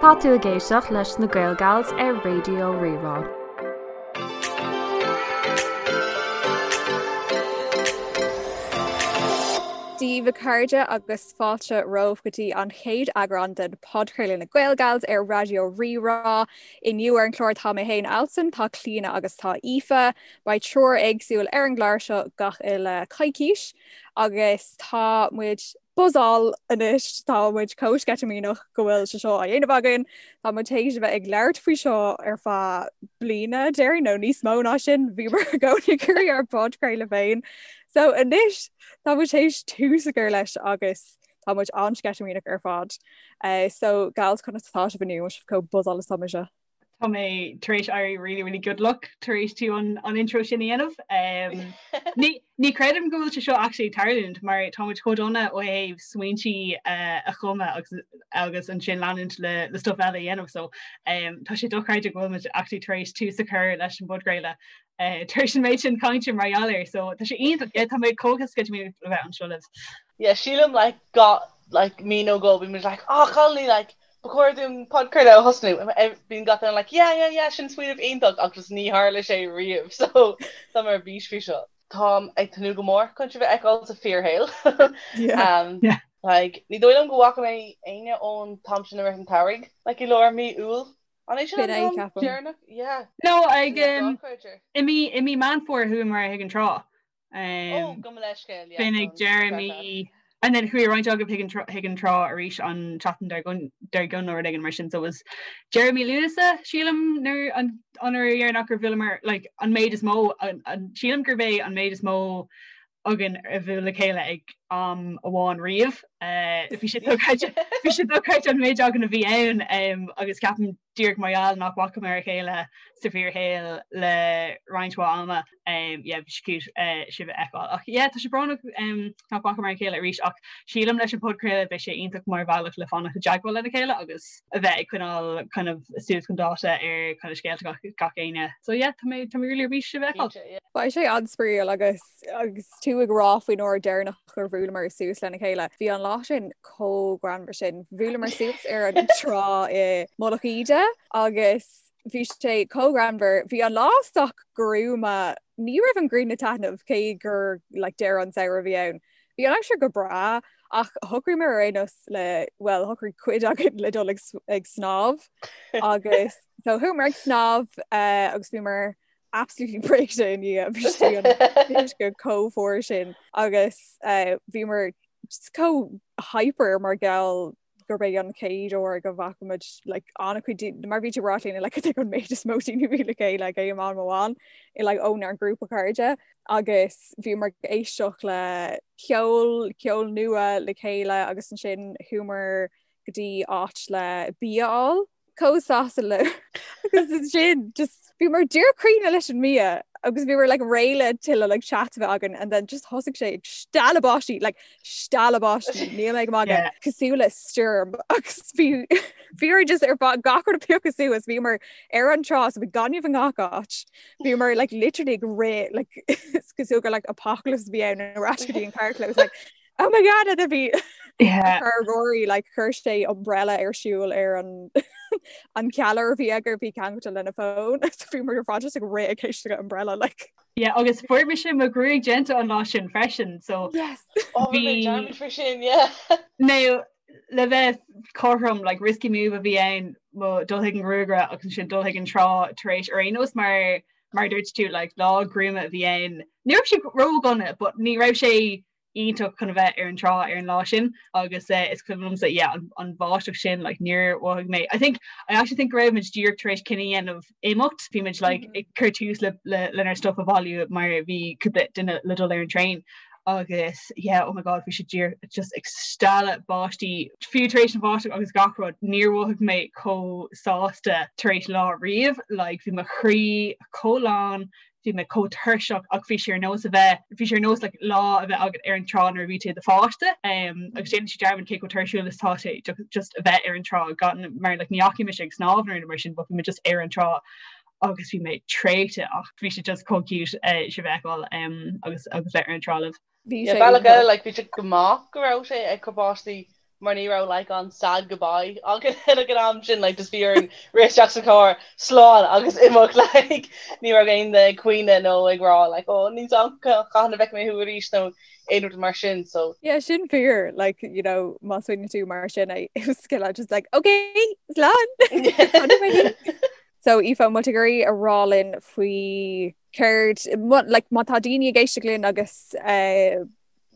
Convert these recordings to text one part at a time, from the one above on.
Tá tú ag éisteacht leis na Gaelgals ar Raidió Rí-Rá. Dia daoibh a chairde agus fáilte romhaibh go dtí an chéad eagrán den podchraoladh na Gaelgals ar Raidió Rí-Rá. Inniu ar an chlár tá mé féin Alison, tá Clíona agus tá Aoife. Beidh triúr éagsúil ar an gclár seo gach uile coicís agus tá muid buzzáil anois, tá muid chomh sceitimíneach go bhfuil sé seo á dhéanamh againn. Tá muid théis a bheith ag labhairt faoi seo ar feadh bliana, déarfainn, nó níos mó ná sin, bhíomar i gcónaí ag iarraidh ár bpodchraoladh féin. So anois tá muid théis tús a chur leis agus tá muid an-sceitimíneach ar fad. Uh, so gals conas atá sibh inniu, sibh chomh buzzáil is atá mise. Tá mé tar éis éirí really really good luck tar éis tú an, an intro sin a dhéanamh. Um, ní, ní creidim go bhfuil sé seo actually ag tarlúint mar tá muid chomh dona ó thaobh smaointí uh, a chumadh agus, agus ansin leanúint le, le stuff eile a dhéanamh so um, tá sé dochreidte go bhfuil muid actually tar éis tús a chur leis an bpodchraoladh uh, tar éis an méid sin cainte mar gheall air so tá sé iontach yeah, tá mé chomh sceitimíneach le bheith anseo libh. Yeah, sílim like got like mí nó dhó bhí muid like oh Connolly like Ba chóir dúinn podchraoladh a thosnú. Bíonn gach duine like yeah yeah yeah sin smaoineamh iontach ach just ní tharla sé riamh so tá mé ar bís faoi seo. Táim ag tnúth go mór chun sibh a fheiceáil sa fíorshaol. Um, yeah. Like, ní dóigh liom go bhfaca mé éinne ón t-am sin i rith an tsamhraidh, like i lár mí Iúil. An é sin an t-am deireanach? Yeah. No, ag um, i mí i mí Meán Fómhair chuamar chuig an trá. Oh, gabh mo leithscéal, yeah. B'in ag deireadh mí and then chuaigh roinnt agaibh chuig an chuig an trá arís an tseachtain dár gcionn dár gcionn nó rud éigin mar sin so it was deireadh mí Lúnasa sílim nuair an an uair dheireanach gur bhuaileamar like an méid is mó an an sílim gurb é an méid is mó againn a bhuail le chéile ag am amháin riamh. Eh, bhí sé dochreidte bhí sé dochreidte an méid againn a bhí ann um, agus ceapaim díreach mar gheall nach bhfacamar a chéile sa bhfíorshaol le roinnt mhaith ama. Yeah, bhí sé cute sibh a fheiceáil. Ach yeah, tá sé brónach nach bhfacamar a chéile arís ach sílim leis an podchraoladh beidh sé iontach mar bhealach le fanacht i dteagmháil lena chéile agus a bheith ag coinneáil kind of suas chun dáta ar kind of scéalta gach, gach éinne. So yeah, tá mé tá mé really ar bís sibh a fheiceáil. Beidh sé an-spraíúil agus agus tú ag rá faoin uair deireanach gur bhuaileamar suas lena chéile. Bhí an lá sin chomh greannmhar sin. Bhuaileamar suas ar an trá i Mullach Íde agus Bhí sé chomh greannmhar. Bhí an lá sách gruama. Ní raibh an ghrian ag taitneamh cé gur like, deireadh an samhradh a bhí ann. Bhí an aimsir go breá ach shocraíomar ar aon nós le well shocraigh cuid againn le dul ag, ag snámh agus so chuamar ag snámh uh, agus bhíomar absolutely briste i ndiaidh bhí sé an uisce chomh fuar sin agus uh, bhíomar just chomh hyper mar gheall gurb é an chéad uair go bhfaca muid like, an-chuid daoine mar bhí tú ag rá Clíona like, an méid is mó daoine a bhí le chéile ag aon am amháin i like, ónár ngrúpa cairde agus bhíomar ag éisteacht le ceol ceol nua le chéile agus ansin chuamar go dtí áit le bia a fháil chomh sásta le agus ansin just bhíomar díreach críochnaithe leis an mbia agus bhíomar like réidh le tuilleadh like chat a bheith againn and then just thosaigh sé ag stealladh báistí like stealladh báistí níl mé ag magadh yeah. cosúil le stoirm agus bhí bhíomar just ar fad gach rud ag piocadh suas bhíomar ar an trá so bhí gaineamh i ngach áit bhíomar like literally ag rith like cosúil gur like apocalypse a bhí ann ar ais go dtí an carrchlós like Oh my god a bhí yeah. Rory like chuir sé umbrella ar siúl ar an an ceallaire a bhí aige bhí ceangailte lena fón bhíomar ar fad just ag rith ag éisteacht le umbrella like. Yeah, agus fuair mise mo ghruaig déanta an lá sin freisin so yes. oh, bhí freisin sin yeah. Now le bheith cothrom like risky move a bhí ann mo dul chuig an ghruagaire agus ansin dul chuig an trá tar éis ar aon nós mar mar dúirt tú like lá gruama a bhí ann. Ní raibh sé ródhona, but ní raibh sé iontach chun a bheith ar an trá ar an lá sin agus eh, is cuimhin liomsa yeah, an, an bháisteach sin like, níor mhothaigh mé. I think I actually think go raibh muid díreach tar éis cinneadh a dhéanamh imeacht, bhí muid like, mm -hmm. ag cur tús le, le, lenár stuff a bhailiú mar bhí cúpla duine le dul ar an traein agus yeah, oh my god bhí sé díreach just ag stealladh báistí fiú tar éis an bháisteach agus gach rud níor mhothaigh mé chomh sásta tar éis lá riamh like bhí mo chroí chomh lán bhí mé chomh tuirseach ach bhí sé ar nós a bheith, bhí sé ar nós like lá a bheith agat ar an trá nuair a bhí tú i do pháiste um, agus déanann sé dearmad cé chomh tuirsiúil is atá sé just a bheith ar an trá gan mar like, ní dheachaigh mise ag snámh nó mar sin but bhí mé just ar an trá agus bhí mé traochta ach bhí sé just chomh cute uh, sibh a fheiceáil um, agus agus bheith ar an trá libh. Bhí sé bealach eile like bhí sé go maith go raibh sé ag cur báistí. mar ní raibh like an sad goodbye againn ag an am sin like just bhí orainn rith isteach sa charr slán agus imeacht like ní raibh aon duine ag caoineadh nó ag rá like oh níl a fhios agam cathain a bhfeicfidh mé thú arís nó aon rud mar sin so Yeah sin fíor like you know má smaoiníonn tú mar sin é it was just like okay slán So Aoife an bhfuil tú ag iarraidh a rá linn faoi céard like má tá daoine ag éisteacht linn agus uh,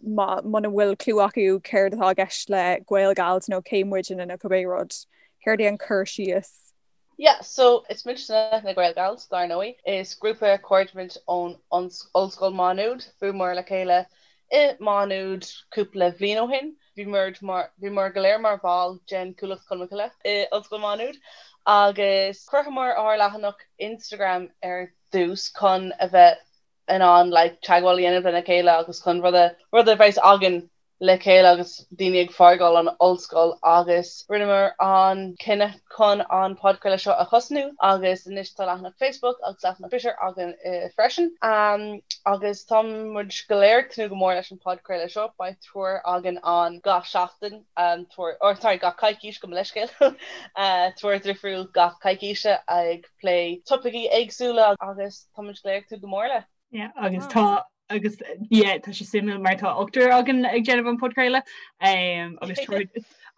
muna bhfuil clue acu céard atá i gceist le Gaelgals nó cé muidne nó cibé rud, céard é an cur síos? Yeah, so is muidne na Gaelgals, dar ndóigh. Is grúpa cairde muid ón Ollscoil Má Nuad. Bhuaileamar le chéile i Má Nuad cúpla bhliain ó shin. Bhíomar mar, bhíomar go léir mar bhall den Chuallacht Cholmcille i Ollscoil Má Nuad agus chruthaíomar ár leathanach Instagram ar dtús chun a bheith in ann like teagmháil a dhéanamh lena chéile agus chun rud a rud a bheas againn le chéile agus daoine ag fágáil an ollscoil agus rinneamar an cinneadh chun an podchraoladh seo a thosnú agus anois tá leathanach Facebook agus leathanach Twitter againn freisin agus tá muid go léir ag tnúth go mór leis an podchraoladh seo beidh triúr againn ann gach seachtain triúr or sorry gach coicís gabh mo leithscéal triúr difriúil gach coicíse ag plé topaicí éagsúla agus Tá muid go léir ag tnúth go mór le. Yeah, agus tá agus yeah, tá sé suimiúil mar tá ochtar againn ag déanamh an podchraoladh um, agus triúr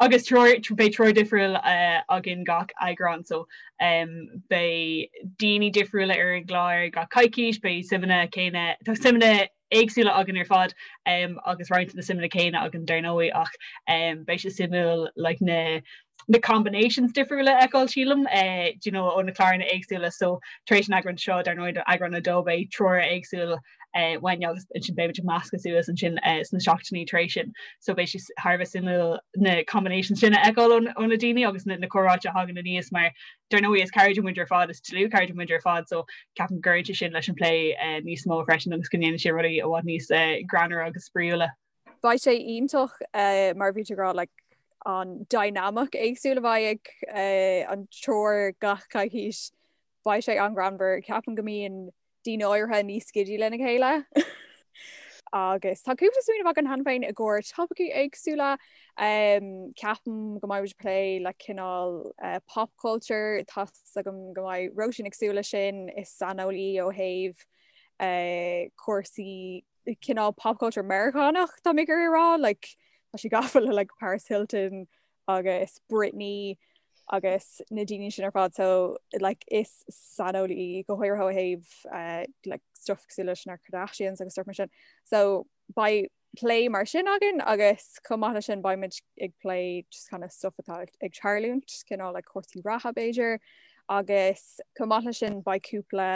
agus triúr beidh triúr difriúil uh, againn gach eagrán so um, beidh daoine difriúla ar an gclár gach coicís, beidh suimeanna céanna tá suimeanna éagsúla againn ar fad um, agus roinnt na suimeanna céanna againn dar ndóigh ach um, beidh sé suimiúil like, na na combinations difriúla a fheiceáil sílim eh, do you know, ó na cláranna éagsúla so tar éis an eagrán seo dar ndóigh eagrán a dó beidh triúr éagsúil eh, uainn agus ansin beimid ag meascadh suas ansin eh, sna seachtainí tar éis sin so beidh sé thar a bheith suimiúil na combinations sin a fheiceáil ó na daoine agus na, na comhráite a thagann aníos mar Dar ndóigh is cairde muid ar fad, is dlúthchairde muid ar fad so ceapaim go gcuireann sé sin leis an plé níos mó freisin agus go ndéanann sé rudaí i bhfad níos greannmhaire agus spraíúla. Beidh sé iontach mar a bhí tú ag rá like an dynamic éagsúil a bheidh ag an triúr gach coicís. Beidh sé an-ghreannmhar. Ceapaim go mbíonn daoine áirithe níos giddy lena chéile. Agus tá cúpla smaoineamh againn cheana féin i gcomhair topaicí éagsúla. Ceapaim go mbeidh muid ag plé le cineál pop culture, tá's agam go mbeidh Róisín ag súil leis sin, is saineolaí ó thaobh cúrsaí cineál pop culture Meiriceánach tá mé ag iarraidh a rá, like tá sí gafa le like Paris Hilton agus Britney agus na daoine sin ar fad so like is saineolaí í go háirithe ó thaobh uh, like stuff cosúil leis na Kardashians agus stuff mar sin. So beidh plé mar sin againn agus chomh maith leis sin beidh muid ag plé just kind of stuff atá ag tarlúint cineál like cúrsaí reatha b'fhéidir agus chomh maith leis sin beidh cúpla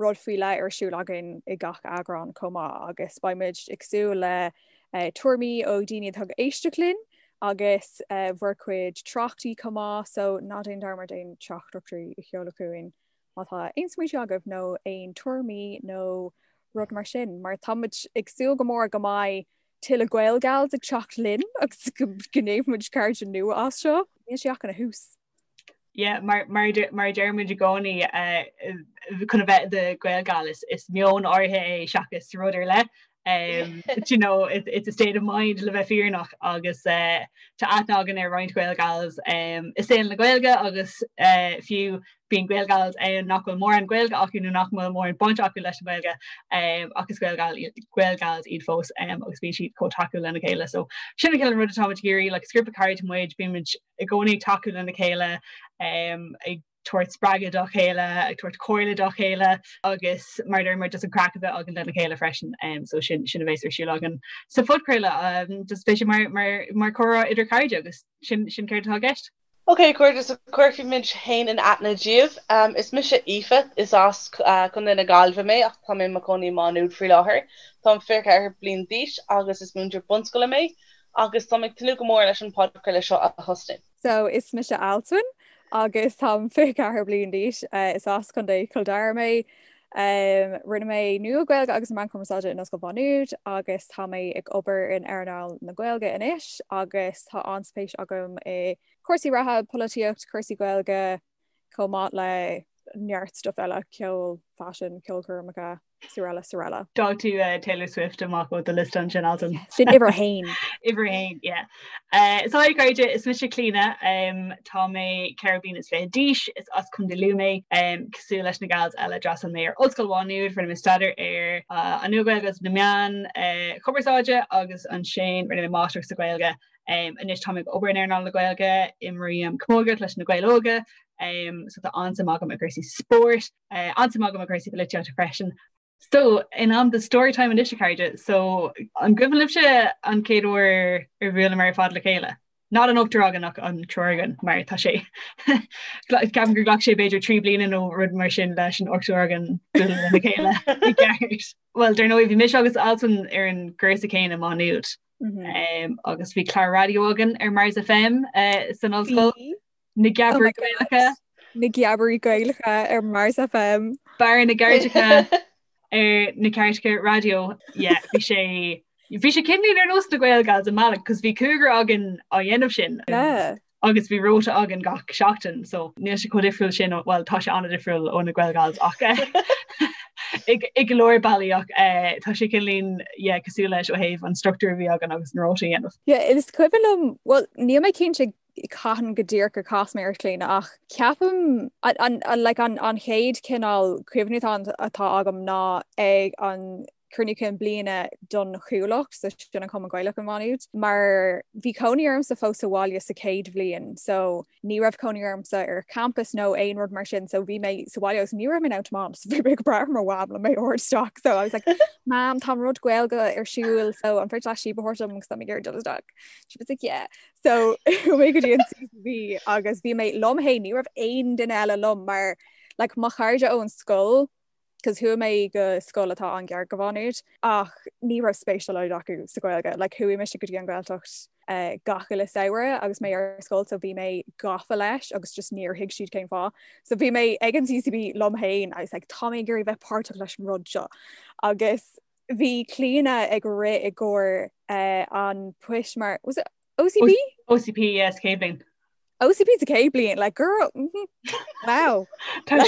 rud faoi leith ar siúl againn i gach eagrán chomh maith agus beidh muid ag súil le tuairimí ó dhaoine atá ag éisteacht linn agus bhur gcuid tráchtaí chomh maith so ná déan dearmad aon teachtaireachtaí a sheoladh chugainn má tá aon smaointe agaibh nó aon tuairimí nó rud mar sin mar tá muid ag súil go mór go mbeidh tuilleadh Gaelgals ag teacht linn agus go ndéanfaidh muid cairde nua as seo. Níl sé ach ina thús. Yeah, mar mar mar a deir muid i gcónaí chun a bheith i do Ghaelgal is is meon áirithe é seachas rud ar leith. Um, you know, it, it's a state of mind le bheith fírinneach agus uh, tá aithne againn ar roinnt Gaelgals um, i saol na Gaeilge agus uh, fiú bíonn Gaelgals ann nach bhfuil mórán Gaeilge acu nó nach bhfuil mórán baint acu leis an Ghaeilge um, ach is Gaelgal Gaelgals iad fós um, agus bíonn siad chomh tacúil lena chéile. So sin an cineál rud atá muid ag iarraidh, like, is grúpa cairde muid, bímid i gcónaí ag tacú lena chéile, ag tabhairt spreagadh dá chéile, ag tabhairt comhairle dá chéile agus mar a deir muid just an craic a bheith againn lena chéile freisin. So sin sin a bheas ar siúl againn sa phodchraoladh. Just beidh sé mar mar mar comhrá idir cairde agus sin sin céard atá i gceist. Ok, a chairde, so cuirfidh muid féin in aithne daoibh. Is mise Aoife, is as Contae na Gaillimhe mé ach tá mé i mo chónaí i Má Nuad faoi láthair. Táim 24 bliain d'aois agus is múinteoir bunscoile mé. agus táim ag tnúth go mór leis an podchraoladh seo a thosnú. So is mise Alswyn agus táim 24 bliain d'aois. Is as Contae Chill Dara mé. Rinne mé Nua-Ghaeilge agus Meán Cumarsáide in Ollscoil Mhá Nuad agus tá mé ag obair in earnáil na Gaeilge anois agus tá an-spéis agam i cúrsaí reatha, polaitíocht, cúrsaí Gaeilge, chomh maith le neart stuff eile, ceol, faisean, ceolchoirmeacha. Sorella Sorella. D'fhág tú eh, Taylor Swift amach ó do liosta ansin Altan. Sin uimhir a haon. Uimhir a haon, yeah. Eh, so hi cairde, is mise Clíona, um, tá mé 24 bliana d'aois, is as Contae Lú mé, um, cosúil leis na gals eile d'fhreastail mé ar Ollscoil Mhá Nuad, rinne mé staidéar ar uh, an Nua-Ghaeilge agus na meáin uh, chumarsáide agus ansin rinne mé máistreacht sa Ghaeilge. Um, anois tá mé ag obair in earnáil na Gaeilge, imrím camógaíocht leis na Gaeil Óga, um, so tá an-suim agam i gcúrsaí spóirt, Uh, an-suim agam i gcúrsaí polaitíochta freisin. So in am do storytime anois a chairde, so an gcuimhin libhse an chéad uair ar bhuaileamar ar fad le chéile? Not an ochtar againn ach an triúr againn mar tá sé ceapaim gur ghlac sé b'fhéidir 3 bliana nó rud mar sin leis an ochtar againn bualadh le chéile i gceart. Well dar ndóigh bhí mise agus Altan ar an gcúrsa céanna i Má Nuad. Mm -hmm. um, agus bhí clár raidió againn ar Mars FM uh, san ollscoil. Na Geabairí Gaelacha. Na Geabairí Gaelacha ar Mars FM. Barra na gCairteacha ar na Cairteacha Raidió. Yeah, bhí sé bhí sé cineál ar nós na Gael Gals i mbealach, cos bhí cúigear againn á dhéanamh sin. Yeah. Agus bhí rota againn gach seachtain, so níl sé chomh difriúil sin, well tá sé an-difriúil ó na Gael Gals ach i go leor bealaí ach eh, tá sé cineál yeah, cosúil leis ó thaobh an struchtúr a bhí againn agus an rota a dhéanamh. Yeah, is cuimhin liom, well níl mé cinnte cathain go díreach gur chas mé ort Clíona ach ceapaim an like an an chéad cineál cuimhne atá atá agam ná ag an cruinniú cinn bliana don Chuallacht so sin an Cumann Gaelach i Má Nuad mar bhí cónaí ormsa fós sa bhaile sa chéad bhliain so ní raibh cónaí ormsa ar campus nó aon rud mar sin so bhí mé sa bhaile agus ní raibh mé in ann tiomáint so bhí mé ag brath ar mo mham le mé a thabhairt isteach so I was like Mam tá rud Gaeilge ar siúl so an féidir leat síob a thabhairt dom agus tá mé ag iarraidh dul isteach she was like yeah So chuaigh mé go dtí an CCB agus bhí mé liom féin ní raibh aon duine eile liom mar like, mo chairde ón scoil cos chuaigh mé go scoil atá an-ghar go Mhá Nuad ach ní raibh spéis dá laghad acu sa Ghaeilge. Like, chuaigh mise go dtí an Ghaeltacht uh, gach uile samhradh agus mé ar scoil so bhí mé gafa leis agus just níor thuig siad cén fáth. So bhí mé ag an CCB liom féin I was like, tá mé ag iarraidh bheith páirteach leis an rud seo. Agus Bhí Clíona ag rith i gcomhair an poist mar was it OCP? OCP yes chéad bhliain. OCP sa chéad bhliain like girl mm -hmm. wow. Tá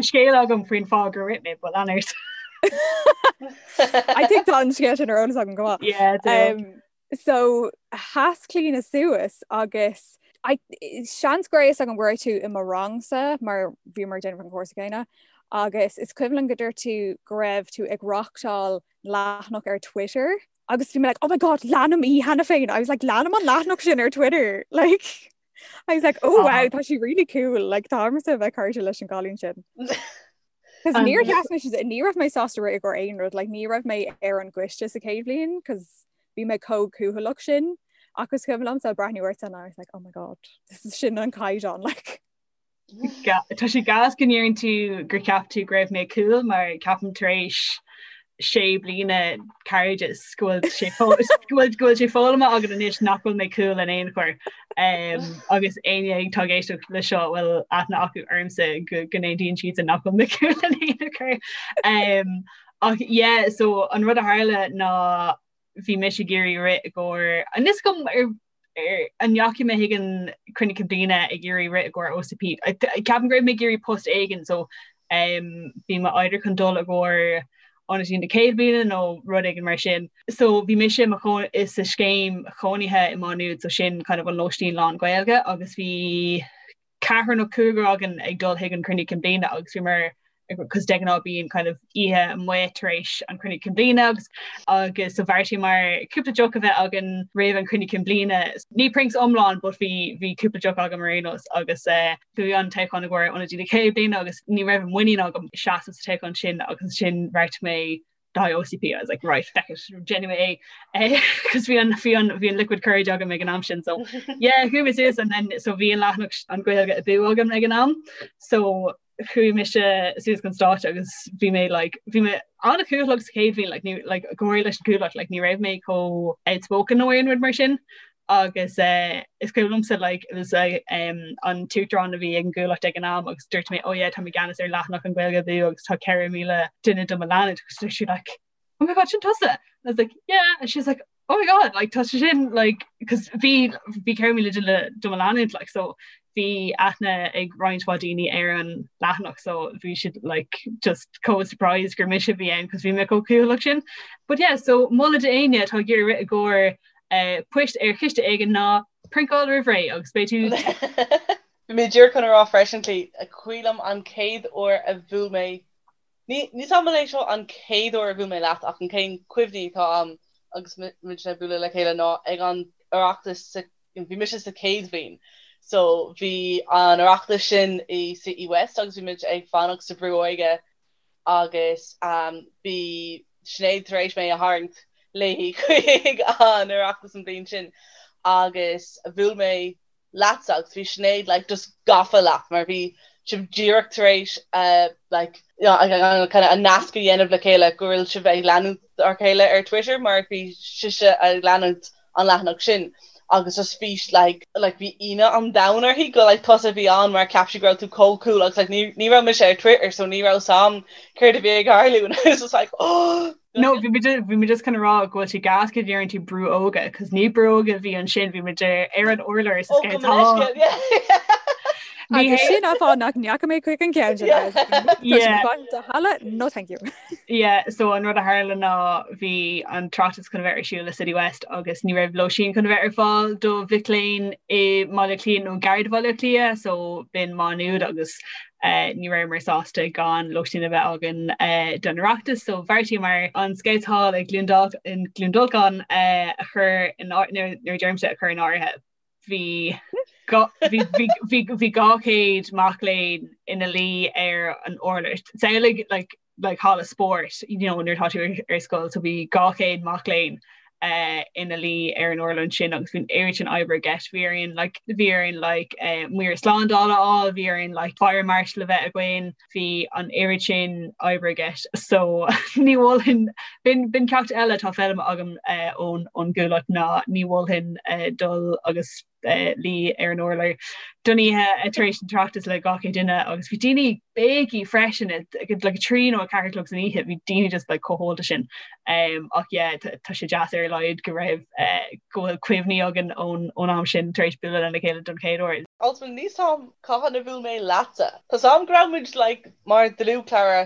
scéal agam faoin fáth gur rith mé but lean ort. I think tá an scéal sin ar eolas agam go maith. Yeah, um, So sheas Clíona suas agus I, seans go raibh a fhios agam go raibh tú i mo rangsa mar bhíomar ag déanamh an cúrsa céanna agus is cuimhin liom go dúirt tú go raibh tú ag reachtáil leathanach ar Twitter agus bhí mé like oh my god leanaim í cheana féin I was like leanaim an leathanach sin ar Twitter like I was like oh wow tá sí really cool like táimse a bheith cairde leis an gcailín sin. Cos níor sheas mé ní raibh mé sásta rith i gcomhair aon rud, like, ní raibh mé ar an gcoiste sa chéad bhliain cos bhí mé chomh cúthaileach sin ach is cuimhin liomsa breathnú ort and I was like oh my god this is sin an caighdeán like. Tá sé gas go ndeireann tú gur cheap tú go raibh mé cool mar ceapaim tar éis sé bliana cairdeas go bhfuil sé go bhfuil sé foghlamtha agam anois nach bhfuil mé cool in aon chor um, agus éinne atá ag éisteacht le seo bhfuil aithne acu ormsa go go n-aontaíonn siad nach bhfuil mé cool in aon chor. Um, ach yeah, so an rud a tharla ná bhí mise ag iarraidh rith i gcomhair an is cuma ar ar an ndeachaigh mé chuig an cruinniú cinn bliana ag iarraidh rith i gcomhair OCP. Ceapaim go raibh mé ag iarraidh post éigin so um, bhí mé either chun dul i gcomhair ionadaí na céad bliana nó rud éigin mar sin. So bhí mise i mo chónaí sa scéim chónaithe i Má Nuad so sin kind of an lóistín lán Gaeilge agus bhí ceathrar nó cúigear againn ag dul chuig an cruinniú cinn bliana agus bhíomar cos de ghnáth bíonn kind of oíche amuigh tar éis an cruinniú cinn bliana agus agus so bheartaíomar cúpla deoch a bheith againn roimh an cruinniú cinn bliana. Ní prinks iomlán but bhí bhí cúpla deoch agam ar aon nós agus eh, bhí an toghchán i gcomhair ionadaí na chéad bliana agus ní raibh muinín agam seasamh sa toghchán sin agus ansin bheartaigh mé do OCP I was like right feck it déanfaidh mé é cos bhí an bhí an bhí an liquid courage agam ag an am sin so yeah chuaigh mé suas and then so bhí an leathanach an Gaeilge Abú agam ag an am so chuaigh mise suas chun stáitse agus bhí mé like bhí mé an-chúthaileach sa chéad bhliain like ní like go háirithe leis an gCuallacht like ní raibh mé chomh outspoken nó aon rud mar sin agus eh, is cuimhin liomsa like it was uh, um, an t-uachtarán a bhí ag an gCuallacht ag an am agus dúirt mé oh yeah tá mé i gceannas ar leathanach an Gaeilge Abú agus tá 4,000 duine do mo leanúint agus dúirt sí like oh my god sin tusa and I was like yeah and she's like oh my god like tá sé sin like cos bhí bhí 4,000 duine do mo leanúint like so. Bhí aithne ag roinnt mhaith daoine ar an leathanach so bhí siad like just chomh surprised gur mise a bhí ann cos bhí mé chomh cúthaileach sin. But yeah, so moladh d'éinne atá ag iarraidh rith i gcomhair eh, poist ar chiste éigin ná priontáil roimh ré agus beidh tú Bhí mé díreach chun a rá freisin, Clí, cuimhin liom an chéad uair a bhuail mé Ní níl a fhios agam an é seo an chéad uair a bhuail mé leat ach an chéad cuimhní atá agam agus muid ag bualadh le chéile ná ag an Oireachtas sa bhí mise sa chéad bhliain so bhí an Oireachtas sin i City West agus bhí muid ag fanacht sa Brú Óige agus bhí Sinéad tar éis mé a tharraingt léi chuig an Oireachtas an bhliain sin agus bhuail mé leatsa agus bhí Sinéad like just gafa leat mar bhí sibh díreach tar éis uh, like you know, kind of an nasc a dhéanamh le chéile go bhfuil sibh ag leanúint ar chéile ar Twitter mar bhí sise ag leanúint an leathanach sin agus just bhí like like bhí ionadh an domhain uirthi go like tusa a bhí ann mar cheap sí go raibh tú chomh cool agus like ní ní raibh mise ar Twitter so ní raibh a fhios agam céard a bhí ag tarlú and I was just like oh No, bhí muid bhí muid just chun a rá go bhfuil sé gas go ndeireann tú brú óga, cos ní brú óga a bhí ansin, bhí muid ar an urlár sa Ó, go minic, yeah. Ní Agus hé sin an fáth nach ndeachaigh mé chuig an gceann sin Yeah. agus tá sé Yeah. fan do halla, no thank you. Yeah, so an rud a tharla ná bhí an tOireachtas chun a bheith ar siúl i City West agus ní raibh lóistín chun a bheith ar fáil do mhic léinn i mBaile Átha Cliath nó gar do Bhaile Átha Cliath, so b'in Má Nuad agus Ní rabhamar sásta gan lóistín a bheith againn don Oireachtas so bheartaíomar an Scouts Hall i gCluain Dolcáin a chur in nuair a deirimse a chur in áirithe bhí bhí 200 mac léinn ina luí ar an urlár. Samhlaigh like like halla spóirt you know nuair atá tú ar scoil so bhí 200 mac léinn uh, ina luí ar an urlár ansin agus bhí an oiread sin oibre i gceist bhí orainn like bhí orainn like uh, maor slándála a fháil bhí orainn like fire marshal a bheith againn bhí an oiread sin oibre i gceist so ní mholfainn b'in b'in ceacht eile atá foghlamtha agam uh, ón ón gcúthaileacht ná ní mholfainn uh, dul agus luí ar an urlár don oíche tar éis an tOireachtas le 200 duine agus bhí daoine béigí freisin like 3 nó 4 a chlog san oíche bhí daoine just like chomh hólta sin um, ach yeah tá sé deas ar a laghad go raibh uh, go bhfuil cuimhní againn ón ón am sin tar éis bualadh lena chéile don chéad uair. Also níl a fhios agam cathain a bhuail mé leatsa. Tá a fhios agam go raibh muid like mar dlúthchara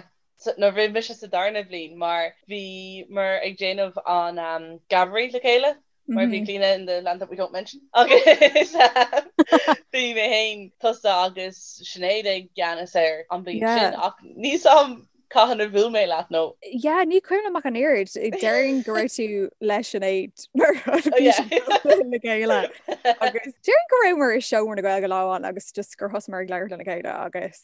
nuair a bhí mise sa darna bhliain mar bhíomar ag déanamh an um, Geabaire le chéile. Mar bhí Clíona in the land that we don't mention agus bhí mé féin tusa agus Sinéad i gceannas air an bhliain sin ach níl a fhios agam cathain a bhuail mé leat nó. Yeah, ní cuimhin liom ach an oiread. Déarfainn go raibh tú le Sinéad mar le chéile. Agus déarfainn go rabhamar i seomra na Gaeilge lá amháin agus just gur thosaíomar ag labhairt lena chéile agus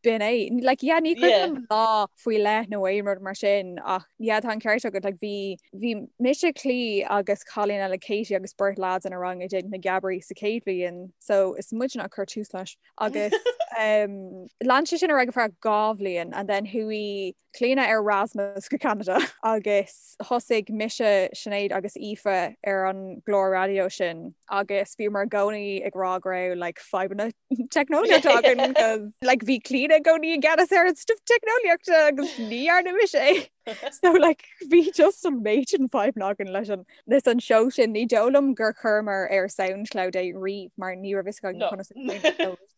B'in é. Like, yeah, ní cuimhin liom lá faoi leith nó aon rud mar sin ach yeah, tá an ceart agat like, bhí bhí mise Clí agus cailín eile Katie agus beirt lads inár rang ag déanamh na geabairí sa chéad bhliain so is muidne a chuir tús leis agus um, lean sé sin ar aghaidh ar feadh 2 bhliain and then chuaigh Clíona ar Erasmus go Ceanada agus thosaigh mise, Sinéad agus Aoife ar an gclár raidió sin agus bhíomar i gcónaí ag rá go raibh like fadhbanna teicneolaíochta againn cos like bhí Clíona i gcónaí i gceannas ar an stuff teicneolaíochta agus ní dhearna mise é. So like bhí just an méid sin fadhbanna againn leis an leis an seó sin ní dóigh liom gur chuireamar ar Soundcloud é riamh mar ní raibh fhios againn conas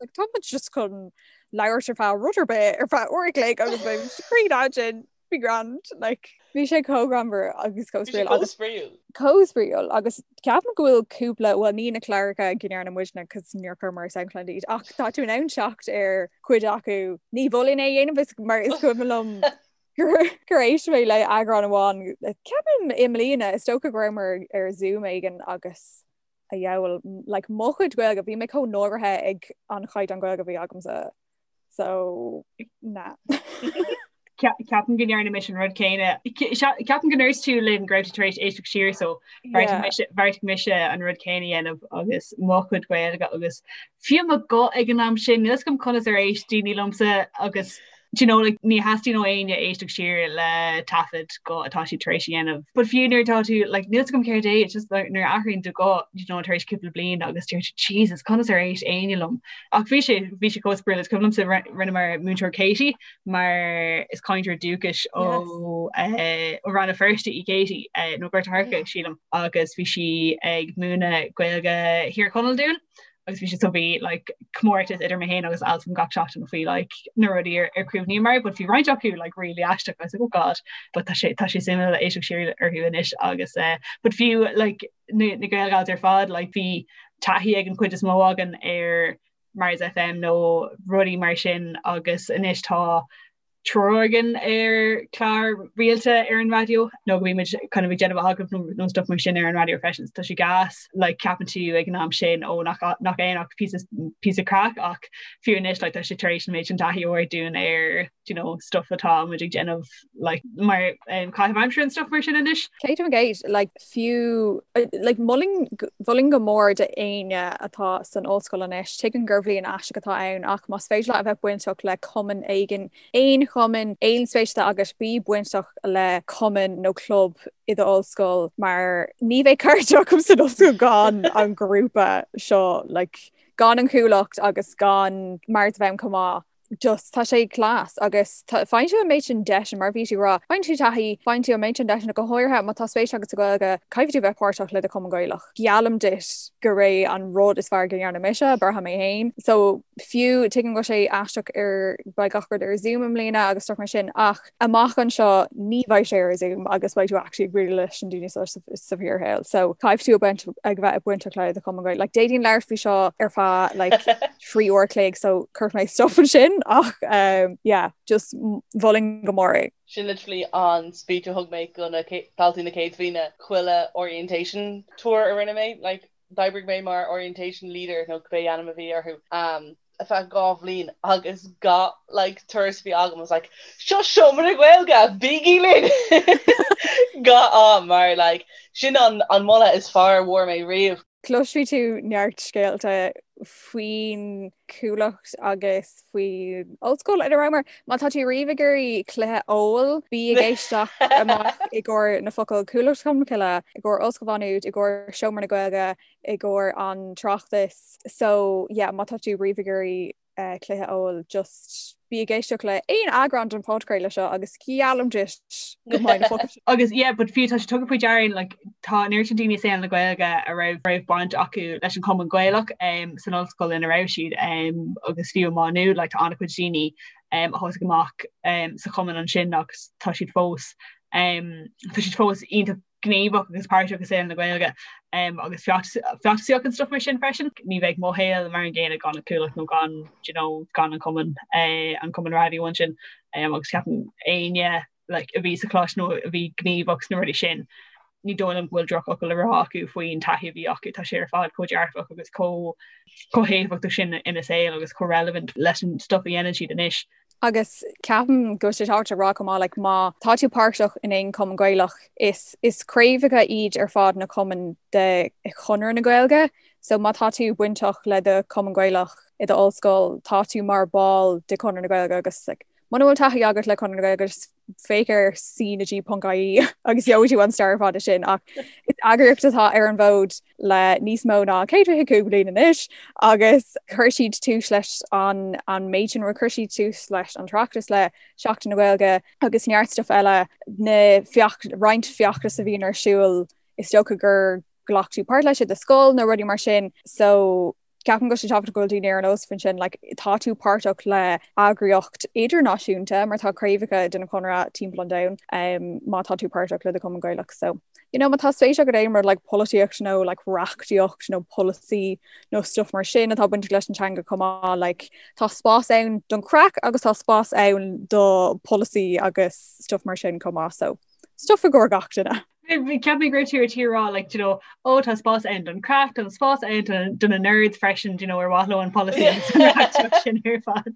like tá muid just chun labhairt ar feadh rud ar bith ar feadh uair a chloig agus beidh sé cruinn ansin be grand like bhí sé chomh greannmhar agus chomh spraíúil agus chomh spraíúil agus ceapaim go bhfuil cúpla bhuel ní na cláracha go ndearna muidne cos níor chuireamar ar SoundCloud iad ach tá tú in ann teacht ar chuid acu ní mholfainn é a dhéanamh is mar is cuimhin liom gur gur éist mé le eagrán amháin ceapaim i mbliana is dócha go rabhamar ar Zoom éigin agus a dheabhail, like mo chuid Gaeilge, bhí mé chomh náirithe ag an chaighdeán Gaeilge a bhí agamsa. So, nah. Ceapaim go ndearna mise an rud céanna. Ceapaim go ndúirt tú linn go raibh tú tar éis éisteacht siar so bheartaigh mise an rud céanna a dhéanamh agus mo chuid Gaeilge agus fiú mo ghuth ag an am sin, níl 'fhios agam conas ar éist daoine liomsa agus Do you know, like, ní theastaíonn ó éinne éisteacht siar le taifead guth atá siad tar éis a dhéanamh. But fiú nuair atá tú, like, níl 'fhios agam céard é, it's just like, nuair a athraíonn do ghuth, you know, tar éis cúpla bliain agus deir tú, Jesus, conas ar éist éinne liom? Ach bhí sé, bhí sé chomh spraíúil, is cuimhin liomsa rinneamar Múinteoir Katie mar is cainteoir dúchais ó eh, ó Rann na Feirste í Katie, eh, nó Gort a' Choirce, sílim, agus bhí sí ag múineadh Gaeilge Thír Chonaill dúinn. Agus bhí sé so bhí like comórtas idir mé féin agus Altan gach seachtain faoi like na rudaí ar ar chuimhníomar, but bhí roinnt acu like really aisteach I was like oh god, but tá sé tá sé suimiúil éisteacht siar orthu anois agus eh but fiú like na na Gaelgals ar fad like bhí taithí ag an chuid is mó againn ar Mars FM nó rudaí mar sin agus anois tá triúr againn ar chlár rialta ar an raidió nó go mbímid kind of ag déanamh agallamh nó stuff mar sin ar an raidió freisin. Tá sé gas like ceapann tú ag an am sin ó nach nach aon ach píosa píosa craic ach fiú anois like tá sé tar éis an méid sin taithí a thabhairt dúinn ar you know stuff atá muid ag déanamh like mar um, caitheamh aimsire and stuff mar sin anois. 100% like fiú like mholfainn mholfainn go mór d'éinne atá san ollscoil anois, tuigim gur bhliain aisteach atá ann ach más féidir leat a bheith bainteach le cumann éigin, aon chumann, aon spéis atá agat, bí bainteach le cumann nó club i d'ollscoil mar ní bheidh cairde agam san ollscoil gan an grúpa seo like gan an Chuallacht agus gan Mars FM chomh maith. just tá sé class agus faigheann tú an méid sin deiseanna mar bhí tú ag rá, faigheann tú taithí, faigheann tú an méid sin deiseanna go háirithe má tá spéis agat sa Ghaeilge, caithfidh tú bheith páirteach le do chumann Gaelach. Geallaim duit gurb é an rud is fearr go ndearna mise, braithim mé féin. So fiú tuigim go bhfuil sé aisteach ar beidh gach rud ar Zoom i mbliana agus stuff mar sin ach amach anseo ní bheidh sé ar Zoom agus beidh tú actually ag bualadh leis na daoine seo sa bhfíorshaol. So caithfidh tú ag bheith bainteach le do chumann Gaeilge. Like d'fhéadfainn labhairt faoi seo ar feadh like 3 uair chloig so cuirfidh mé stop ansin ach um, yeah, just mholfainn go mór é. Sin literally an speech a thug mé go na daltaí na céad bhliana chuile orientation tour a rinne mé, like d'oibrigh mé mar orientation leader nó cibé ainm a bhí orthu um, ar feadh 2 bhliain agus gach like turas a bhí agam I was like seo seomra na Gaeilge, bígí linn! Gach am mar like sin an, an moladh is fearr a bhfuair mé riamh. Cloisfidh tú neart scéalta faoin Chuallacht agus faoin ollscoil ina rabhamar. Má tá tú riamh ag iarraidh cluiche óil, bí ag éisteacht amach i gcomhair na focail Cuallacht Cholmcille, i gcomhair Ollscoil Mhá Nuad, i gcomhair Seomra na Gaeilge, i gcomhair an tráchtas. So yeah, má tá tú riamh ag iarraidh cluiche óil just bí ag éisteacht le aon eagrán den phodchraoladh seo agus geallaim duit go mbeidh na focail sin. Agus yeah, but fiú tá sé tugtha faoi deara like, tá an oiread sin daoine i saol na Gaeilge a raibh raibh baint acu leis an Chumann Gaelach um, san ollscoil ina raibh siad um, agus fiú i Má Nuad like, tá an-chuid daoine um, a thosaigh amach um, sa chumann ansin agus tá siad fós um, tá siad fós iontach gníomhach agus páirteach i saol na Gaeilge agus feachtasaíocht and stuff mar sin freisin. Ní bheadh mo shaol mar an gcéanna gan an Chuallacht nó gan you know, gan an cumann eh, an cumann raidió ansin agus ceapaim éinne like, a bhí sa choláiste nó a bhí gníomhach sna rudaí sin ní dóigh liom go bhfuil drochfhocal le rá acu faoin taithí a bhí acu, tá sé ar fad chomh dearfach agus chomh chomh héifeachtach sin ina saol agus chomh relevant leis an stuff a dhéanann siad anois. Agus ceapaim go bhfuil sé tábhachtach a rá chomh maith, like, má tá tú páirteach in aon chumann Gaelach, is is craobhacha iad ar fad na cumainn de Chonradh na Gaeilge, so má tá tú bainteach le do chumann Gaelach i do ollscoil, tá tú mar ball de Chonradh na Gaeilge agus like, muna bhfuil taithí agat le Conradh na Gaeilge, just féach ar cnag.ie agus gheobhaidh tú an stair ar fad sin ach is eagraíocht atá ar an bhfód le níos mó ná 125 bliain anois agus chuir siad tús leis an an méid sin chuir siad tús leis an tOireachtas le Seachtain na Gaeilge agus neart stuff eile na feach roinnt feachtas a bhíonn ar siúl is dócha gur ghlac tú páirt leis i do scoil nó rudaí mar sin so Ceapaim go bhfuil sé tábhachtach go bhfuil daoine ar an eolas faoin sin, like, tá tú páirteach le eagraíocht idirnáisiúnta mar tá craobhacha den Chonradh timpeall an domhain um, má tá tú páirteach le do Chumann Gaelach. So, you know, má tá spéis agat aon rud like polaitíocht nó like reachtaíocht nó polasaí nó stuff mar sin atá bainteach leis an teanga chomh maith, like, tá spás ann don craic agus tá spás ann do polasaí agus stuff mar sin chomh maith. So, stuff i gcomhair gach duine. Cheap mé go raibh tú ar tí a rá like, you know, ó tá spás ann don craic, tá spás ann do na nerds freisin, you know, ar mhaith leo an polasaí agus an reachtaíocht sin ar fad.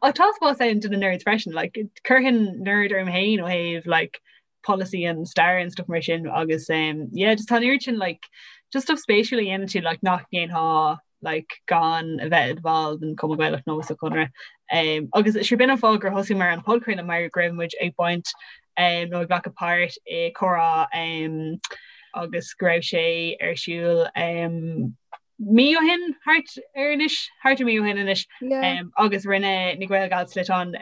Ach tá spás ann do na nerds freisin, like, chuirfinn nerd orm féin ó thaobh like, polasaí and stair and stuff mar sin agus um, yeah, just tá an oiread sin like, just stuff spéisiúil a dhéanann tú like, nach ndéanfá like, gan a bheith i do bhall den Chumann Gaelach nó sa Chonradh. Um, agus sure b'in an fáth gur thosaigh muid an podchraoladh mar go raibh muid ag baint um, nó ag glacadh páirt i comhrá um, agus go raibh sé ar siúl um, mí ó shin thart ar anois thart ar mí ó shin anois agus rinne na GaelGals sliotán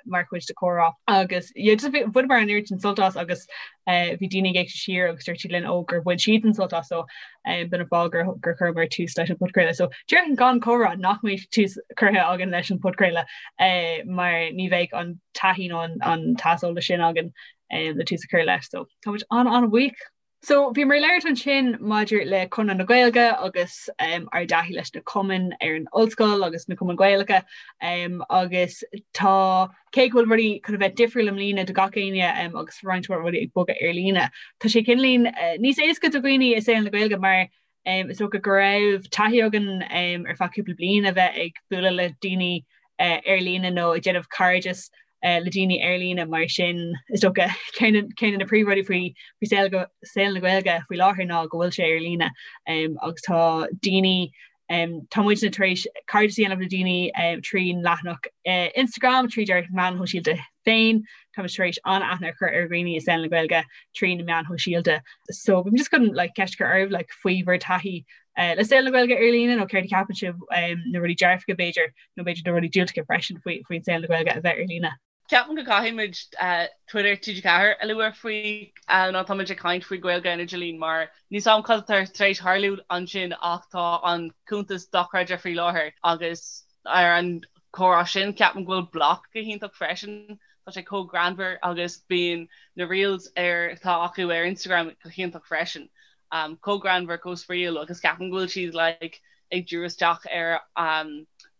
mar chuid de comhrá agus bhaineamar an oiread sin sult as agus eh, bhí daoine ag éisteacht siar agus dúirt siad linn ó gur bhain siad an sult as so b'in an fáth gur gur chuireamar tús leis an podchraoladh. So déarfainn gan comhrá nach mbeadh tús curtha againn leis an podchraoladh eh, mar ní bheadh an taithí nó an t-aiseolas sin againn eh, le tús a chur leis. So tá muid an an-bhuíoch. So bhíomar ag labhairt ansin maidir le Conradh na Gaeilge agus um, ár dtaithí leis na cumainn ar an ollscoil agus na cumainn Gaelacha um, agus tá cé go bhfuil rudaí chun a bheith difriúil i mbliana do gach éinne um, agus roinnt mhaith rudaí ag bogadh ar líne. Tá sé cineáilín uh, níos éasca do dhaoine i saol na Gaeilge mar um, is dócha go raibh taithí againn um, ar feadh cúpla bliain a bheith ag bualadh le daoine uh, ar líne nó ag déanamh cairdeas uh, le daoine ar líne mar sin is dócha ceann de na príomhrudaí faoi faoi saol saol na Gaeilge faoi láthair ná go bhfuil sé ar líne um, agus tá daoine um, tá muidne tar éis cairdeas a dhéanamh le daoine um, trín leathanach uh, Instagram tríd ár meáin shóisialta féin Tá tar éis an-aithne a chur ar dhaoine i saol na Gaeilge trí na meáin shóisialta. So bím just chun like, ceist a chur oraibh like, faoi bhur taithí uh, le saol na Gaeilge ar líne nó céard a cheapann sibh um, na rudaí dearfacha b'fhéidir nó b'fhéidir na rudaí diúltacha freisin faoi faoin saol na Gaeilge a bheith ar líne. Ceapaim go gcaithfidh muid uh, Twitter TG4 a lua faoi uh, nuair atá muid ag caint faoi Gaeilge ar an idirlíon mar níl a fhios agam cad atá tar éis tarlú ansin ach tá an cuntas dochreidte faoi láthair agus ar an comhrá sin ceapaim go bhfuil Bloc go hiontach freisin. Tá sé chomh greannmhar agus bíonn na reels ar atá acu ar Instagram go hiontach freisin. Um, chomh greannmhar, chomh spraíúil agus ceapaim go bhfuil siad like, ag díriú isteach ar um,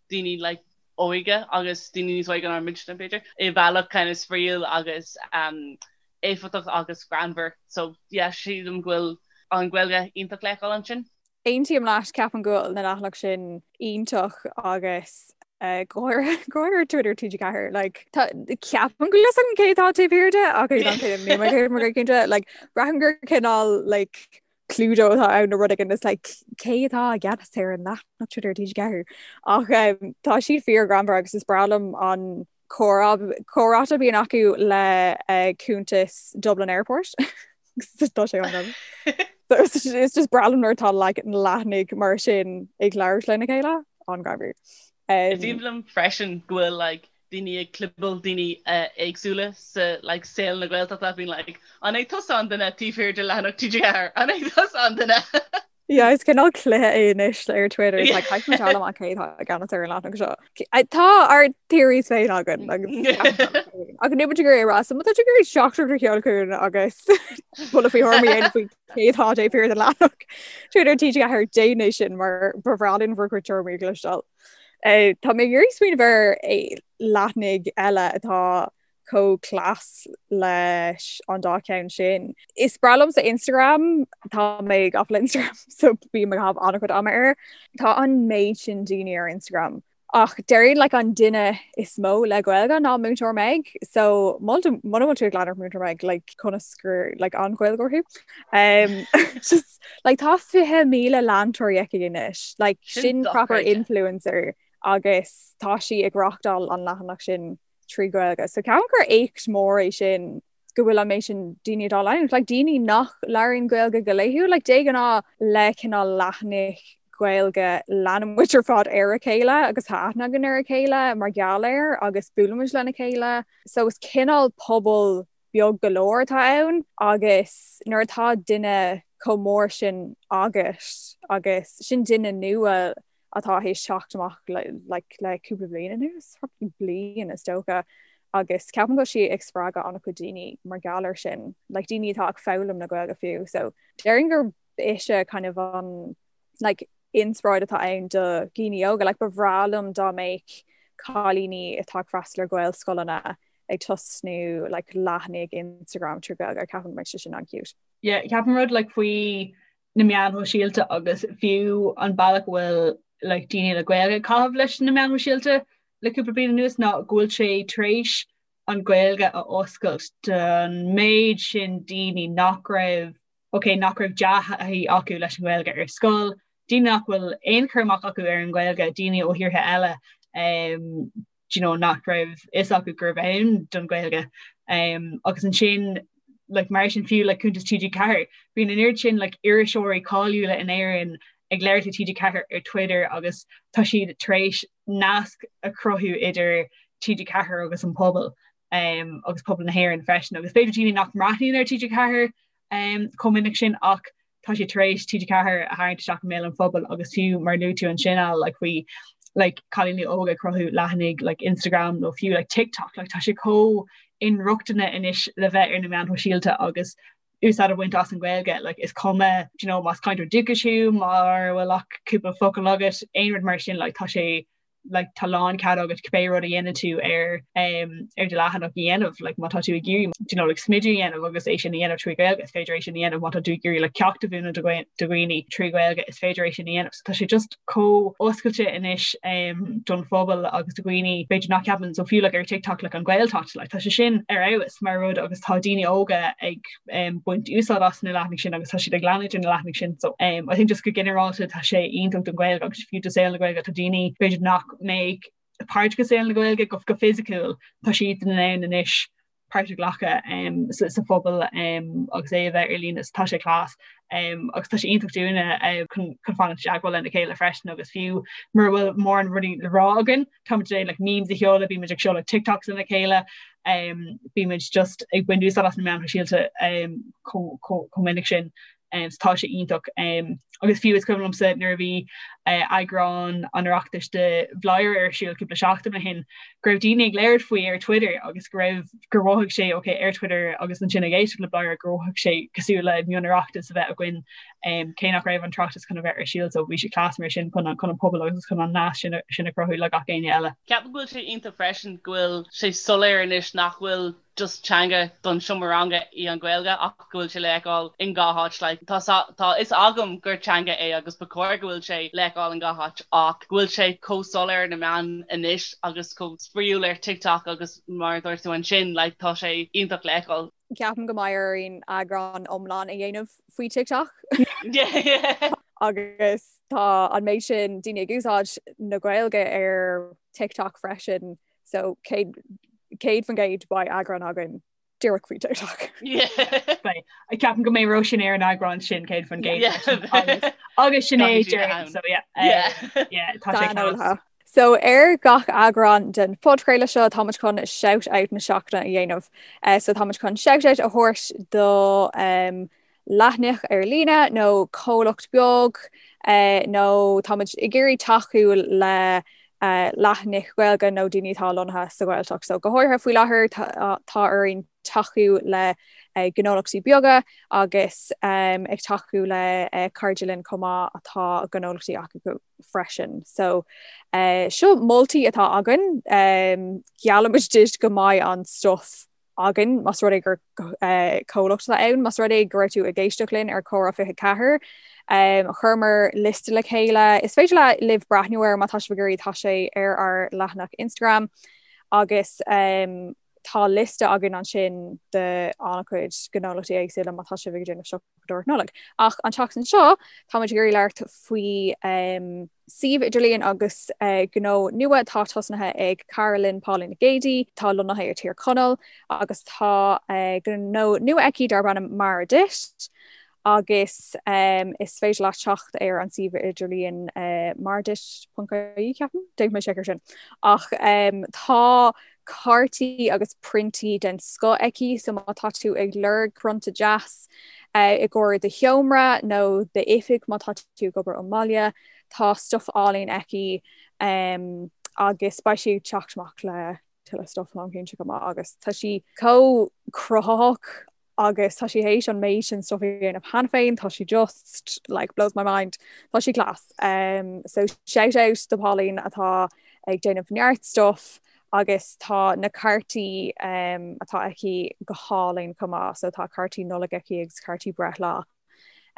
daoine like, óige agus daoine níos óige ná muidne b'fhéidir i bhealach kind of spraíúil agus um, éifeachtach agus greannmhar. So yeah, sílim go bhfuil an Ghaeilge iontach le feiceáil ansin. Aontaím leat, ceapaim go bhfuil na leathanaigh sin iontach agus go háirithe Twitter TG4 like tá ceapaim go bhfuil fhios agam cé atá taobh thiar de ach níl mé cé mar cinnte like braithim gur cineál like Cluedo atá ann nó rud éigin is like cé atá i gceannas ar an leathanach Twitter TG4 ach um, tá siad fíor greannmhar agus is breá liom an comhráite a bhíonn acu le uh, cuntas Dublin Airport. Tá sé an It's just breá liom nuair atá like, leathanaigh mar sin ag labhairt lena chéile an-ghreannmhar. Um, Is aoibhinn liom freisin go bhfuil like, daoine ag clibeáil daoine uh, éagsúla sa like, saol na Gaeltachta bíonn like, an é tusa an duine taobh thiar de leathanach TG4 an é tusa an duine. Yeah, is cineál cluiche é anois ar Twitter is like caithfidh muid a fháil amach cé atá i gceannas ar an leathanach seo. Tá ár theories féin againn agus ach níl muid ag iarraidh a rá so má tá tú ag iarraidh teachtaireacht a sheoladh chugainn agus buille faoi thuairimí a dhéanamh faoi cé atá taobh thiar den leathanach Twitter TG4 déan é sin mar ba bhreá linn bhur gcuid tuairimí a chloisteáil. Eh, tá mé ag iarraidh smaoineamh ar eh, leathanaigh eile atá chomh class leis an dá cheann sin. Is breá liomsa Instagram, tá mé gafa le Instagram so bím ag caitheamh an-chuid ama air. Tá an méid sin daoine ar Instagram. Ach déarfainn like an duine is mó le Gaeilge ná Múinteoir Meg, so muna bhfuil tú ag leanacht Múinteoir Meg like conas gur like an-Ghaeilgeoir thú. Um, just like tá 20,000 leantóirí aici anois, like sin proper influencer agus tá sí ag reáchtáil an leathanach sin 3 Gaeilge. So ceapaim gur éacht mór é sin go bhfuil an méid sin daoine dá leanúint. Like daoine nach labhraíonn Gaeilge go laethúil, like de ghnáth le cineál leathanaigh Gaeilge leanann muid ar fad ar a chéile agus tá aithne againn ar a chéile mar gheall air agus buaileann muid lena chéile. So is cineál pobal beag go leor atá ann agus nuair atá duine chomh mór sin agat agus sin duine nua atá théis teacht amach like le cúpla bliain anuas, probably bliain is dócha, agus ceapaim go bhfuil sí ag spreagadh an-chuid daoine mar gheall air sin, like daoine atá ag foghlaim na Gaeilge fiú, so déarfainn gur ise kind of an like inspioráid atá ann do dhaoine óga, like ba bhreá liom dá mbeadh cailíní atá ag freastal ar Ghaelscoileanna ag tosnú like leathanaigh Instagram trí Ghaeilge, ceapaim go mbeadh sé sin an-cute. Yeah, ceapaim rud like faoi na meáin shóisialta agus fiú an bealach a bhfuil like, daoine le Gaeilge ag caitheamh leis na meáin shóisialta le cúpla bliain anuas ná go bhfuil sé tar éis an Ghaeilge a oscailt don méid sin daoine nach raibh ok nach raibh dea-thaithí acu leis an Ghaeilge ar scoil, daoine nach bhfuil aon chur amach acu ar an Ghaeilge, daoine ó thíortha eile um, you know, nach raibh fhios acu gurbh ann don Ghaeilge. Um, agus ansin like, mar sin fiú like, cuntas TG4, bíonn an oiread sin like, iriseoirí cáiliúla in Éirinn ag labhairt le TG4 ar Twitter agus tá siad tar éis nasc a chruthú idir TG4 agus an pobal um, agus pobal na hÉireann freisin agus b'fhéidir daoine nach mbreathnaíonn ar TG4 um, chomh minic sin ach tá siad tar éis TG4 a tharraingt isteach i mbéal an phobail agus fiú mar luaigh tú ansin Al like faoi like cailíní óga ag cruthú leathanaigh like Instagram nó fiú like TikTok like tá sé chomh inrochtana anois le bheith ar na meáin shóisialta agus úsáid a bhaint as an Ghaeilge like is cuma do you know más cainteoir dúchais thú mura bhfuil ach cúpla focal agat aon rud mar sin like tá sé like tá lánchead agat cibé rud a dhéanann tú ar um, ar do leathanach a dhéanamh like má tá tú ag iarraidh you know, like, smideadh a dhéanamh agus é sin a dhéanamh trí Ghaeilge is féidir é sin a dhéanamh má tá tú ag iarraidh like, ceacht a mhúineadh do dhaoine trí Ghaeilge is féidir é sin a dhéanamh so tá sé just chomh oscailte anois um, don phobal agus do dhaoine b'fhéidir nach ceapann so fiú like, ar TikTok like, an Ghaeltacht like, tá sé sin ar fheabhas mar rud agus tá daoine óga ag um, baint úsáid as na leathanaigh sin agus tá siad ag leanúint ar na leathanaigh sin so um, I think just go ginearálta tá sé iontach don Ghaeilge agus fiú do saol na Gaeilge tá daoine b'fhéidir nach mbeadh páirteach i saol na Gaeilge go go fisiciúil tá siad in ann anois páirt a ghlacadh um, sa, sa phobal um, agus é a bheith ar líne tá sé class um, agus tá sé iontach dúinne uh, chun, chun fanacht i dteagmháil lena chéile freisin agus fiú mura bhfuil mórán rudaí le rá againn Táimid ag like memes a sheoladh, bímid ag seoladh TikToks lena chéile, um, bímid just ag baint úsáid as na meáin shóisialta um, chomh minic sin. Um, so tá sé iontach. Um, agus fiú is cuimhin liomsa nuair a bhí uh, eagrán an Oireachtais de Bhladhaire ar siúl cúpla seachtain ó shin, go raibh daoine ag labhairt faoi ar Twitter agus go raibh gur mhothaigh sé okay, ar Twitter agus ansin ag éisteacht le Bladhaire gur mhothaigh sé cosúil le mion-Oireachtas a bheith againn um, cé nach raibh an tOireachtas chun a bheith ar siúl so bhí sé class mar sin chun an chun an pobal agus chun an nasc sin sin a chruthú le gach éinne eile. Ceapaim go bhfuil sé iontach freisin go bhfuil sé soiléir anois nach bhfuil just teanga don seomra ranga í an Ghaeilge ach go bhfuil sé le feiceáil in gach áit like tá tá fhios agam gur teanga é agus ba chóir go bhfuil sé le feiceáil in gach áit ach go bhfuil sé chomh soiléir ar na meáin anois agus chomh spraíúil ar TikTok agus mar a dúirt tú ansin like tá sé iontach le feiceáil. Ceapaim go mbeidh orainn eagrán iomlán a dhéanamh faoi TikTok. Agus tá an méid sin daoine ag úsáid na Gaeilge ar TikTok freisin, so 100% beidh eagrán againn díreach faoi TikTok. Beidh. Ceapaim go mbeidh Róisín ar an eagrán sin 100% agus Sinéad so yeah. Yeah, tá sé class. So ar gach eagrán den phodchraoladh seo táimid chun shout out na seachtaine a dhéanamh. So táimid chun shout out a thabhairt do um, leathanach ar líne nó comhlacht beag uh, nó táimid ag iarraidh tacú le uh, leathanaigh Ghaeilge nó daoine atá lonnaithe sa Ghaeltacht. So go háirithe faoi láthair tá, tá orainn tacú le uh, gnólachtaí beaga agus um, ag tacú le uh, cairde linn chomh maith atá gnólachtaí acu freisin. So eh, seo moltaí atá againn, um, geallaimid duit go mbeidh an stuff againn más rud é gur eh, comhlacht atá ann, más rud é go raibh tú ag éisteacht linn ar Comhrá 24, um, chuireamar liosta le chéile. Is féidir le libh breathnú air má tá sibh ag iarraidh tá sé ar ár leathanach Instagram agus um, tá liosta againn ansin de an-chuid gnólachtaí éagsúla má tá sibh ag déanamh siopadóireacht Nollag. Ach an tseachtain seo táimid ag iarraidh labhairt faoi um, suíomh idirlíon agus uh, gnó nua atá tosnaithe ag cara linn Pauline Nic Géadaigh, tá lonnaithe i Tír Chonaill agus tá uh, gnó nua aici darb ainm Mar Duit agus um, is féidir leat teacht ar an suíomh idirlíon uh, marduit.ie ceapaim, déanfaidh mé seic ar sin. Ach um, tá cártaí agus priontaí den scoth aici, so má tá tú ag lorg prionta deas uh, i gcomhair do sheomra nó d'oifig má tá tú ag obair ón mbaile, tá stuff álainn aici um, agus beidh sí ag teacht amach le tuilleadh stuff táim cinnte go maith agus tá sí chomh cruthaitheach agus tá sí théis an méid sin stuff a dhéanamh cheana féin, tá sí just like blows my mind, tá sí class. Um, so shout out do Pauline atá ag déanamh neart stuff agus tá na cártaí um, atá aici go hálainn chomh maith, so tá cártaí Nollag aici agus cártaí breithlá.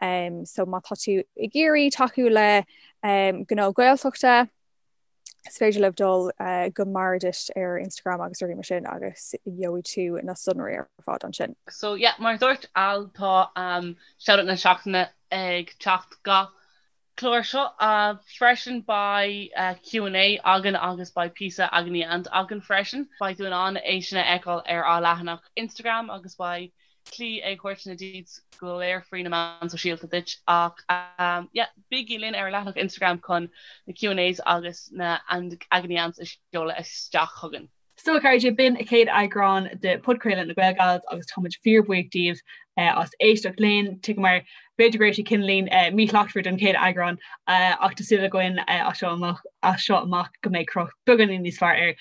Um, so má tá tú ag iarraidh tacú le um, gnó Gaeltachta, Is féidir libh dul go Marduit ar Instagram agus rudaí mar sin agus gheobhaidh tú na sonraí ar fad ansin. So yeah, mar a dúirt Al tá um, shout-out na seachtaine ag teacht gach clár seo. Uh, freisin beidh uh, Q&A againn agus beidh píosa agony aunt againn freisin. Beidh tú in ann é sin a fheiceáil ar ár leathanach Instagram agus beidh. slí ag thabhairt na deets go léir faoi na meáin sóisialta duit ach yeah, bígí linn ar an leathanach Instagram chun na Q&As agus na Agony Aunts a sheoladh isteach chugainn. So a chairde, b'in an chéad eagrán de Podchraoladh na GaelGals agus táimid fíorbhuíoch díobh as éisteacht linn. Tuigim mar b'fhéidir go raibh sé cineáilín míshlachtmhar don chéad eagrán ach tá súil againn as seo amach as seo amach go mbeidh cruth beagáinín níos fearr air.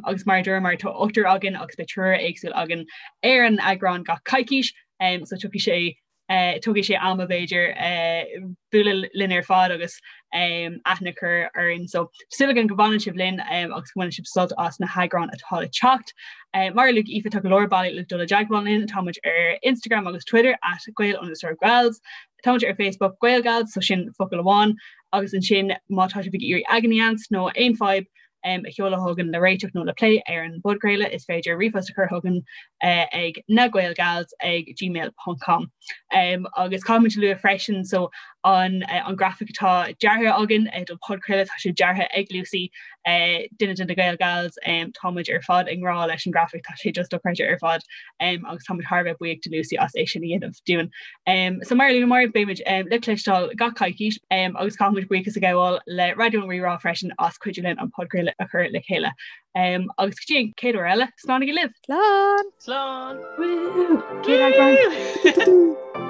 Agus mar a dúramar tá ochtar againn agus beidh triúr éagsúil againn ar an eagrán gach coicís so tiocfaidh sé Tógfaidh sé ama b'fhéidir bualadh linn ar fad agus aithne a chur orainn. So súil againn go bhfanann sibh linn agus go mbaineann sibh sult as na heagráin atá le teacht. Mar a luaigh Aoife tá go leor bealaí le dul i dteagmháil linn, tá muid ar Instagram agus Twitter at Gael underscore Gals. Tá muid ar Facebook Gaelgals, so sin focal amháin, agus ansin má tá sibh ag iarraidh agony aunts nó aon fadhb a sheoladh chugainn le réiteach nó le plé ar an bpodchraoladh, is féidir ríomhphost a chur chugainn ag nagaelgals ag gmail ponc com. Agus caithfimid a lua freisin so an an grafaic atá deartha againn don podchraoladh, tá sé deartha ag Lucy, duine de na Gaelgals, táimid ar fad i ngrá leis an grafaic, tá sé just dochreidte ar fad agus táimid thar a bheith buíoch de Lucy as é sin a dhéanamh dúinn. So mar a luamar, beimid le cloisteáil gach coicís agus caithfimid buíochas a ghabháil le Raidió Rí-Rá freisin as cuidiú linn an podchraoladh a chur le chéile. Agus go dtí an chéad uair eile, slánaigí libh! Slán! Slán! Woo! Céad eagrán!